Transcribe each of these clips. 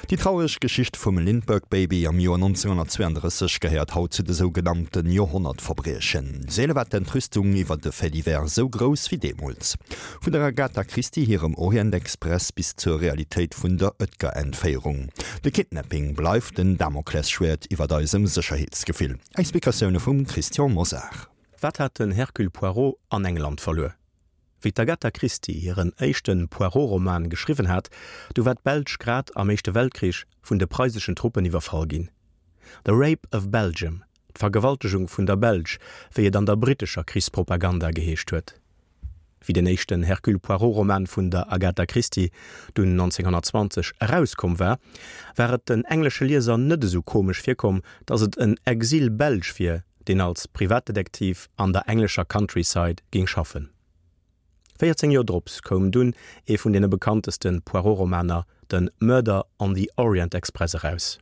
Déi traureg Geschicht vum Lindbergh Baby am Joer 1932 gehéiert haut zu de sougenannte Joerhonnertverbriechen. Seele war d'Entrüstung iwwer de Fait divers esou grouss wéi deemools. Vun der Agatha Christie hirem Orient Express bis zur Realitéit vun der Oetker-Entféierung. De Kidnapping bleift den Damoklesschwäert iwwert eisem Sécherheetsgefill. Explikatioune vum Christian Mosar. Wat hat den Hercule Poirot an England verluer? Wéi d'Agatha Christie hiren éischte Poirot-Roman geschriwwen hat, du war d'Belsch grad am Éischte Weltkrich vun de preiseschen Truppen iwwerfall ginn. The Rape of Belgium, d'Vergewaltegung vun der Belsch, wéi et an der brittescher Krichspropaganda geheescht huet. Wéi den éischten Hercule Poirot-Roman vun der Agatha Christie dunn 1920 erauskomm war, war et den englesche Lieser net esou komesch virkomm, datt et en Exil-Belsch wier, deen als Privatdetektiv an der englescher Countryside géing schaffen. 14 Joer drops koum dunn ee vun deene bekannteste Poirot-Romaner, de Murder on the Orient Express eraus.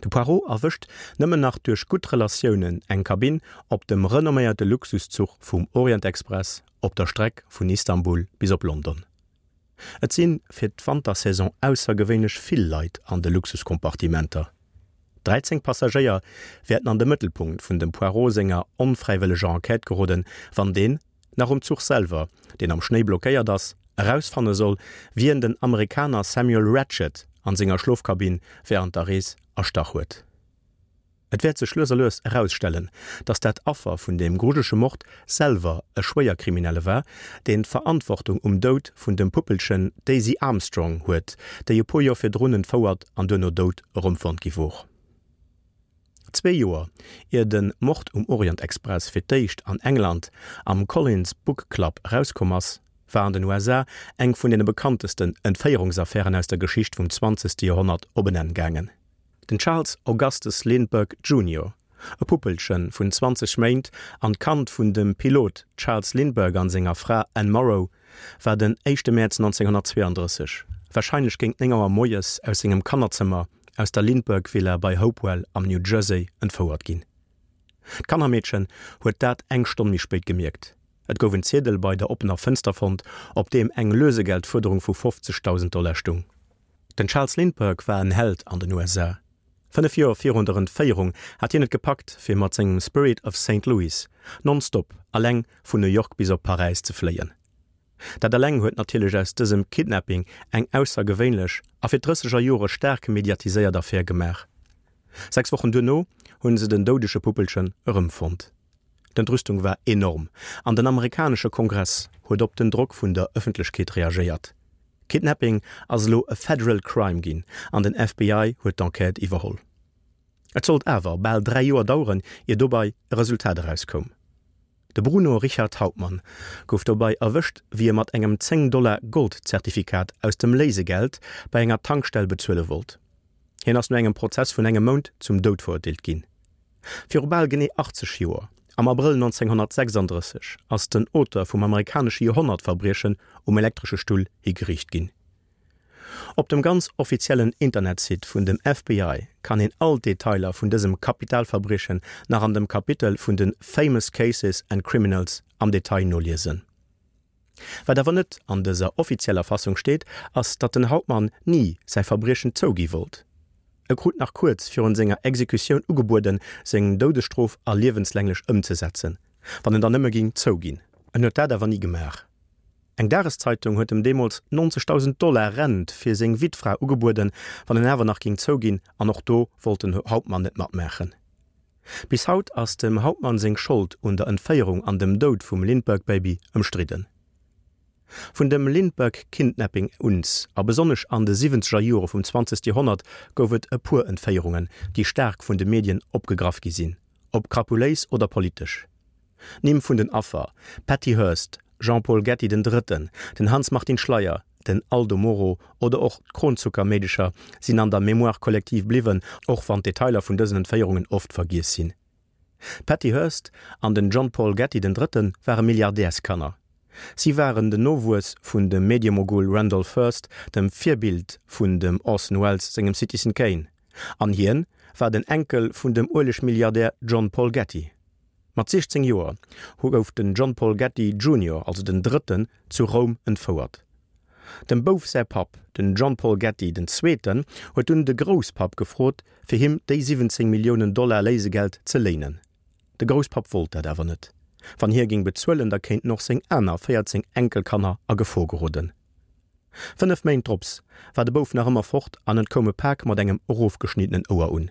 De Poirot erwëscht nëmmen nach duerch gutt Relatiounen eng Kabinn op dem renomméierte Luxuszuch vum Orient Express op der Streck vun Istanbul bis op London. Et si fir d'Wantersaison aussergewéinlech vill Leit an de Luxuskompartimenter. 13 Passagéier wäerten an de Mëttelpunkt vun dem Poirot senger onfräiwëlleger Enquête geroden, wann deen, nach um Zuch selwer, deen am Schnéi blockéiert ass, erausfanne soll, wien den Amerikaner Samuel Ratchett an senger Schlofkabinn wärend der Rees erstach huet. Et wäert sech lues a lues erausstellen, datt dat Affer vun deem grujelege Mord selwer e Schwéierkriminelle war, deen d'Verantwortung um Doud vun dem Puppelchen Daisy Armstrong huet, déi e puer Joer virdrun entfouert an duerno dout erëmfonnt gi wor. Zwee Joer ier de Mord um Orient Express fir d'éischt an England am Collins Book Club erauskomm ass, war an den USA eng vun deene bekanntesten Entféierungsaffären aus der Geschicht vum zwanzegste Joerhonnert op en Enn gaangen. Den Charles Augustus Lindbergh Junior, e Puppelche vun 20 Méint an d'Kand vun dem Pilot Charles Lindbergh an senger Fra Anne Morrow, war den éischte Mäerz 1932, warscheinlech géint 9 Auer moies, aus sengem Kannerzëmmer aus der Lindbergh Villa bei Hopewell am New Jersey entfouert ginn. D'Kannermeedchen huet dat eng Stonn méi spéit gemierkt. Et gouf en Ziedel bei der oppener Fënster fonnt, op deem eng Lösegeldfuerderung vu 50.000 Dollar stung. Den Charles Lindbergh war en Held an den USA. 5 Joer virun der Entféierung hat hien et gepackt, fir mat sengem Spirit of Saint Louis nonstop alleng vun New York bis op Paräis ze fléien. Dat eleng huet natierlech aus dësem Kidnapping eng aussergewéinlech a fir d'drësseger Jore staark mediatiséiert Affär gemaach. 6 Wochen duerno hunn se den doudege Puppelchen erëmfonnt. D'Entrüstung war enorm an den amerikanesche Kongress huet op den Drock vun der Ëffentlechkeet reagéiert. Kidnapping ass elo e Federal Crime ginn an den FBI huet d'Enquête iwwerholl. Et sollt awer bal 3 Joer daueren, ier dobei e Resultat erauskoum. De Bruno Richard Hauptmann gouf dobei erwëscht, wéi e mat engem 10 Dollar Gold-Zertifikat aus dem Léisegeld bei enger Tankstell bezuele wollt. Hien ass no engem Prozess vun engem Mount zum Doud verurteelt ginn. Viru bal genee 80 Joer, am Abrëll 1936, ass den Auteur vum amerikanesche Joerhonnertverbriechen um elektresche Stull higeriicht ginn. Op dem ganz offiziellen Internetsite vun dem FBI kann een all d'Detailer vun dësem Kapitalverbriechen nach an dem Kapitel vun de Famous Cases and Criminals am Detail noliesen. Wat awer net an dëser offizieller Fassung steet, ass datt den Hauptmann ni säi Verbriechen zougi wollt. E krut nach kuerz virun senger Exekutioun ugebueden, seng Doudesstrof a liewenslänglech ëmzesetzen, wann en dann nëmme ging zouginn. En huet dat awer ni gemaach. Eng Dageszeitung huet em deemools 90.000 Dollar Rent fir seng Wittfra ugebueden, wann en awer nach ging zouginn, an och do wollt den Hauptmann net matmaachen. Bis haut ass dem Hauptmann seng Schold un der Entféierung an dem Doud vum Lindbergh-Baby ëmstridden. Vun dem Lindbergh-Kidnapping uns, a besonnesch an de siwwenzeger Jore vum zwanzegste Joerhonnert, gouf et e puer Entféierungen, déi staark vun de Medien opgegraff gi sinn, ob krapuléis oder politesch. D'Nimm vun den Affer, Patty Hearst, Jean-Paul Getty den Drëtten, den Hanns-Martin Schleyer, den Aldo Moro oder och d'Kronzucker-Meedecher sinn an der Mémoire collective bliwwen, och wann d'Detailer vun dësen Entféierungen oft vergiess sinn. D'Patty Hearst an den John Paul Getty den Drëtte ware Milliardärskanner. Si waren den Nowuess vun dem Mediemogul Randolph Hearst, dem Virbild vun dem Orson Welles sengem Citizen Kane. An hien war den Enkel vun dem Uelegmilliardär John Paul Getty. Mat 16 Joer gouf den John Paul Getty Junior, also den Drëtten, zu Roum entfouert. Dem Bouf säi Papp, den John Paul Getty den Zweeten, huet dunn de Grousspapp gefrot, fir him déi 17 Milliounen Dollar Léisegeld ze léinen. De Grousspapp wollt dat awer net. Wann hie géing bezuelen, da kéinten och seng aner 14 Enkelkanner a Gefor geroden. Fënnef Méint drops war de Bouf nach ëmmer fort an et koum e Pak mat engem erofgeschniddenen Ouer un.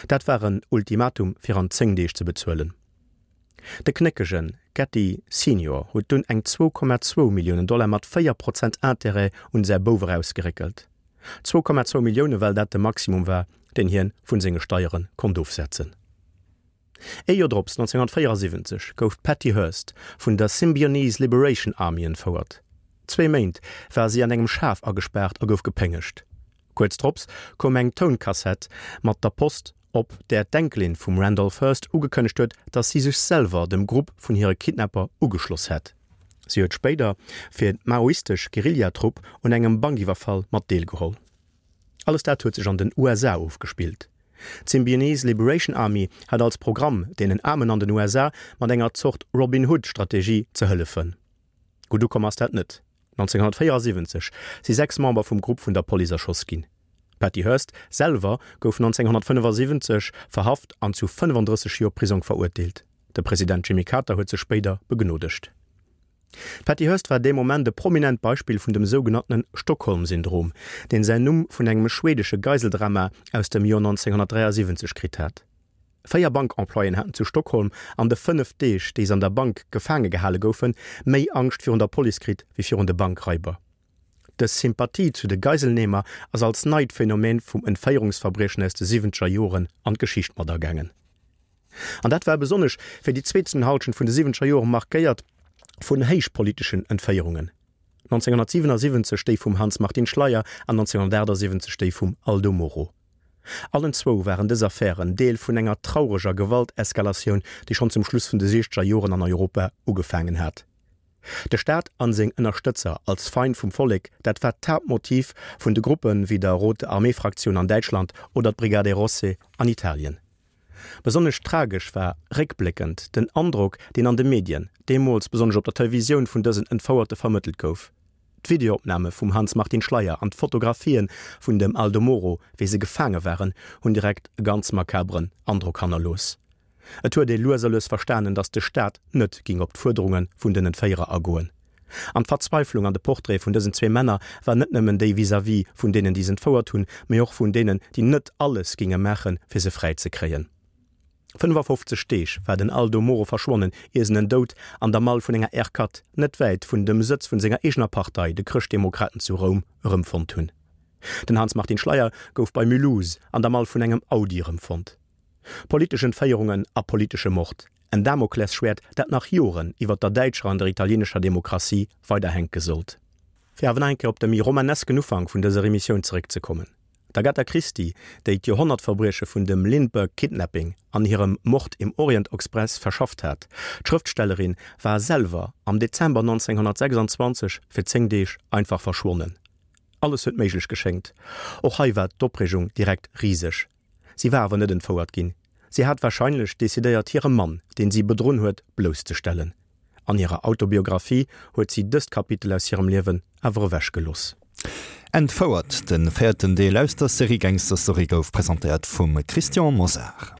Dat war en Ultimatum fir an 10 Deeg ze bezuelen. De knéckege Getty Senior huet dunn eng 2,2 Milliounen Dollar mat 4 Prozent Interêt un säi Bouf erausgeréckelt. 2,2 Millioune well dat de Maximum war, deen hien vun senge Steiere konnt ofsetzen. Ee Joer drops, 1974, gouf d'Patty Hearst vun der Symbionese Liberation Army entfouert. Zwee Méint war si an engem Schaf agespaart a gouf gepéngegt. Kuerz drops koum eng Tounkassett mat der Post, op där d'Enkelin vum Randolph Hearst ugekënnegt huet, datt si sech selwer dem Grupp vun hire Kidnapper ugeschloss hätt. Si huet spéider fir d'maoistesch Guerillatrupp un engem Bankiwwerfall mat deelgeholl. Alles dat huet sech an den USA ofgespillt. D'Symbionese Liberation Army hat als Programm, deenen Aarmen an den USA mat enger Zort Robin Hood-Strategie ze hëllefen. Gutt ukomm ass dat net. 1974 si 6 Member vum Grupp vun der Police erschoss ginn. D'Patty Hearst selwer gouf 1975 verhaft an zu 35 Joer Prisong verurteelt. De President Jimmy Carter huet se spéider begnodegt. D'Patty Hearst war dee Moment e prominent Beispill vun dem sougenanntene Stockholm-Syndrom, deen säin Numm vun engem schweedesche Geiseldrama aus dem Joer 1973 kritt hat. Véier Bankemployéen haten zu Stockholm an de 5 Deeg, déi se an der Bank gefaange gehale goufen, méi Angscht virun der Police kritt wéi virun de Bankraiber. Dës Sympathie zu de Geiselnehmer ass als neit Phänomen vum Entféierungsverbriechen aus de siwwenzeger Joren an d'Geschicht mat agaangen. An dat war besonnesch fir déi zweeten Hallschent vun de siwwenzeger Jore markéiert vun héichpoliteschen Entféierungen, 1977 déi vum Hanns Martin Schleyer an 1978 déi vum Aldo Moro. Allen zwou waren dës Affären Deel vun enger traureger Gewalteskalatioun, déi schonn zum Schluss vun de siechzeger Joren an Europa ugefaangen hat. De Staat an seng Ënnerstëtzer als Feind vum Vollek, dat war d'Haaptmotiv vun de Gruppe wéi der Rote Armee-Fraktioun an Däitschland oder d'Brigate Rosse an Italien. Besonnesch tragesch war réckbléckend den Androck, deen an de Medien, deemools besonnesch op der Televisioun, vun dësen Entfouerte vermëttelt gouf. D'Videoopname vum Hanns Martin Schleyer an d'Fotografië vun dem Aldo Moro, wéi se gefaange waren, hunn direkt e ganz makaberen Androck hannerlooss. Et huet ee lues a lues verstanen, datt de Staat net ging op d'Fuerderunge vun den Entféierer agoen. An d'Verzweiflung an de Portraite vun dësen zwee Männer war net nëmmen déi vis-à-vis vun deenen, déi se entfouert hunn, mee och vun deenen, déi net alles ginge maachen, fir se fräi ze kréien. 55 Deeg war den Aldo Moro verschwonnen, ier en en dout an der Mall vun enger R4, net wäit vun dem Sëtz vun senger eegener Partei, de Chrëschtdemokraten zu Roum, erëmfonnt hunn. Den Hanns Martin Schleyer gouf bei Mulhouse an der Mall vun engem Audi erëmfonnt. Politesch Entféierungen a politesche Mord, en Damoklesschwäert, dat nach Joren iwwer der däitscher an der italienescher Demokratie weider hänke sollt. Fir awer nach eng Kéier op de méi romanesken Ufank vun dëser Emissioun zeréckzekommen, D'Agatha Christie, déi d'Joerhonnertverbrieche vun dem Lindbergh Kidnapping an hirem Mord im Orient Express verschafft hat, d'Schrëftstellerin war selwer am Dezember 1926 fir 10 Deeg einfach verschwonnen. Alles huet méiglech geschéngt. Och hei war d'Opreegung direkt riseg. Si war awer net entfouert ginn. Si hat warscheinlech decidéiert hire Mann, deen si bedrunn huet, blousszestellen. An hirer Autobiographie huet si dëst Kapitel aus hirem Liewen awer ewech gelooss. Entfouert, de véierten Deel aus der Serie Gangster Story gouf presentéiert vum Christian Mosar.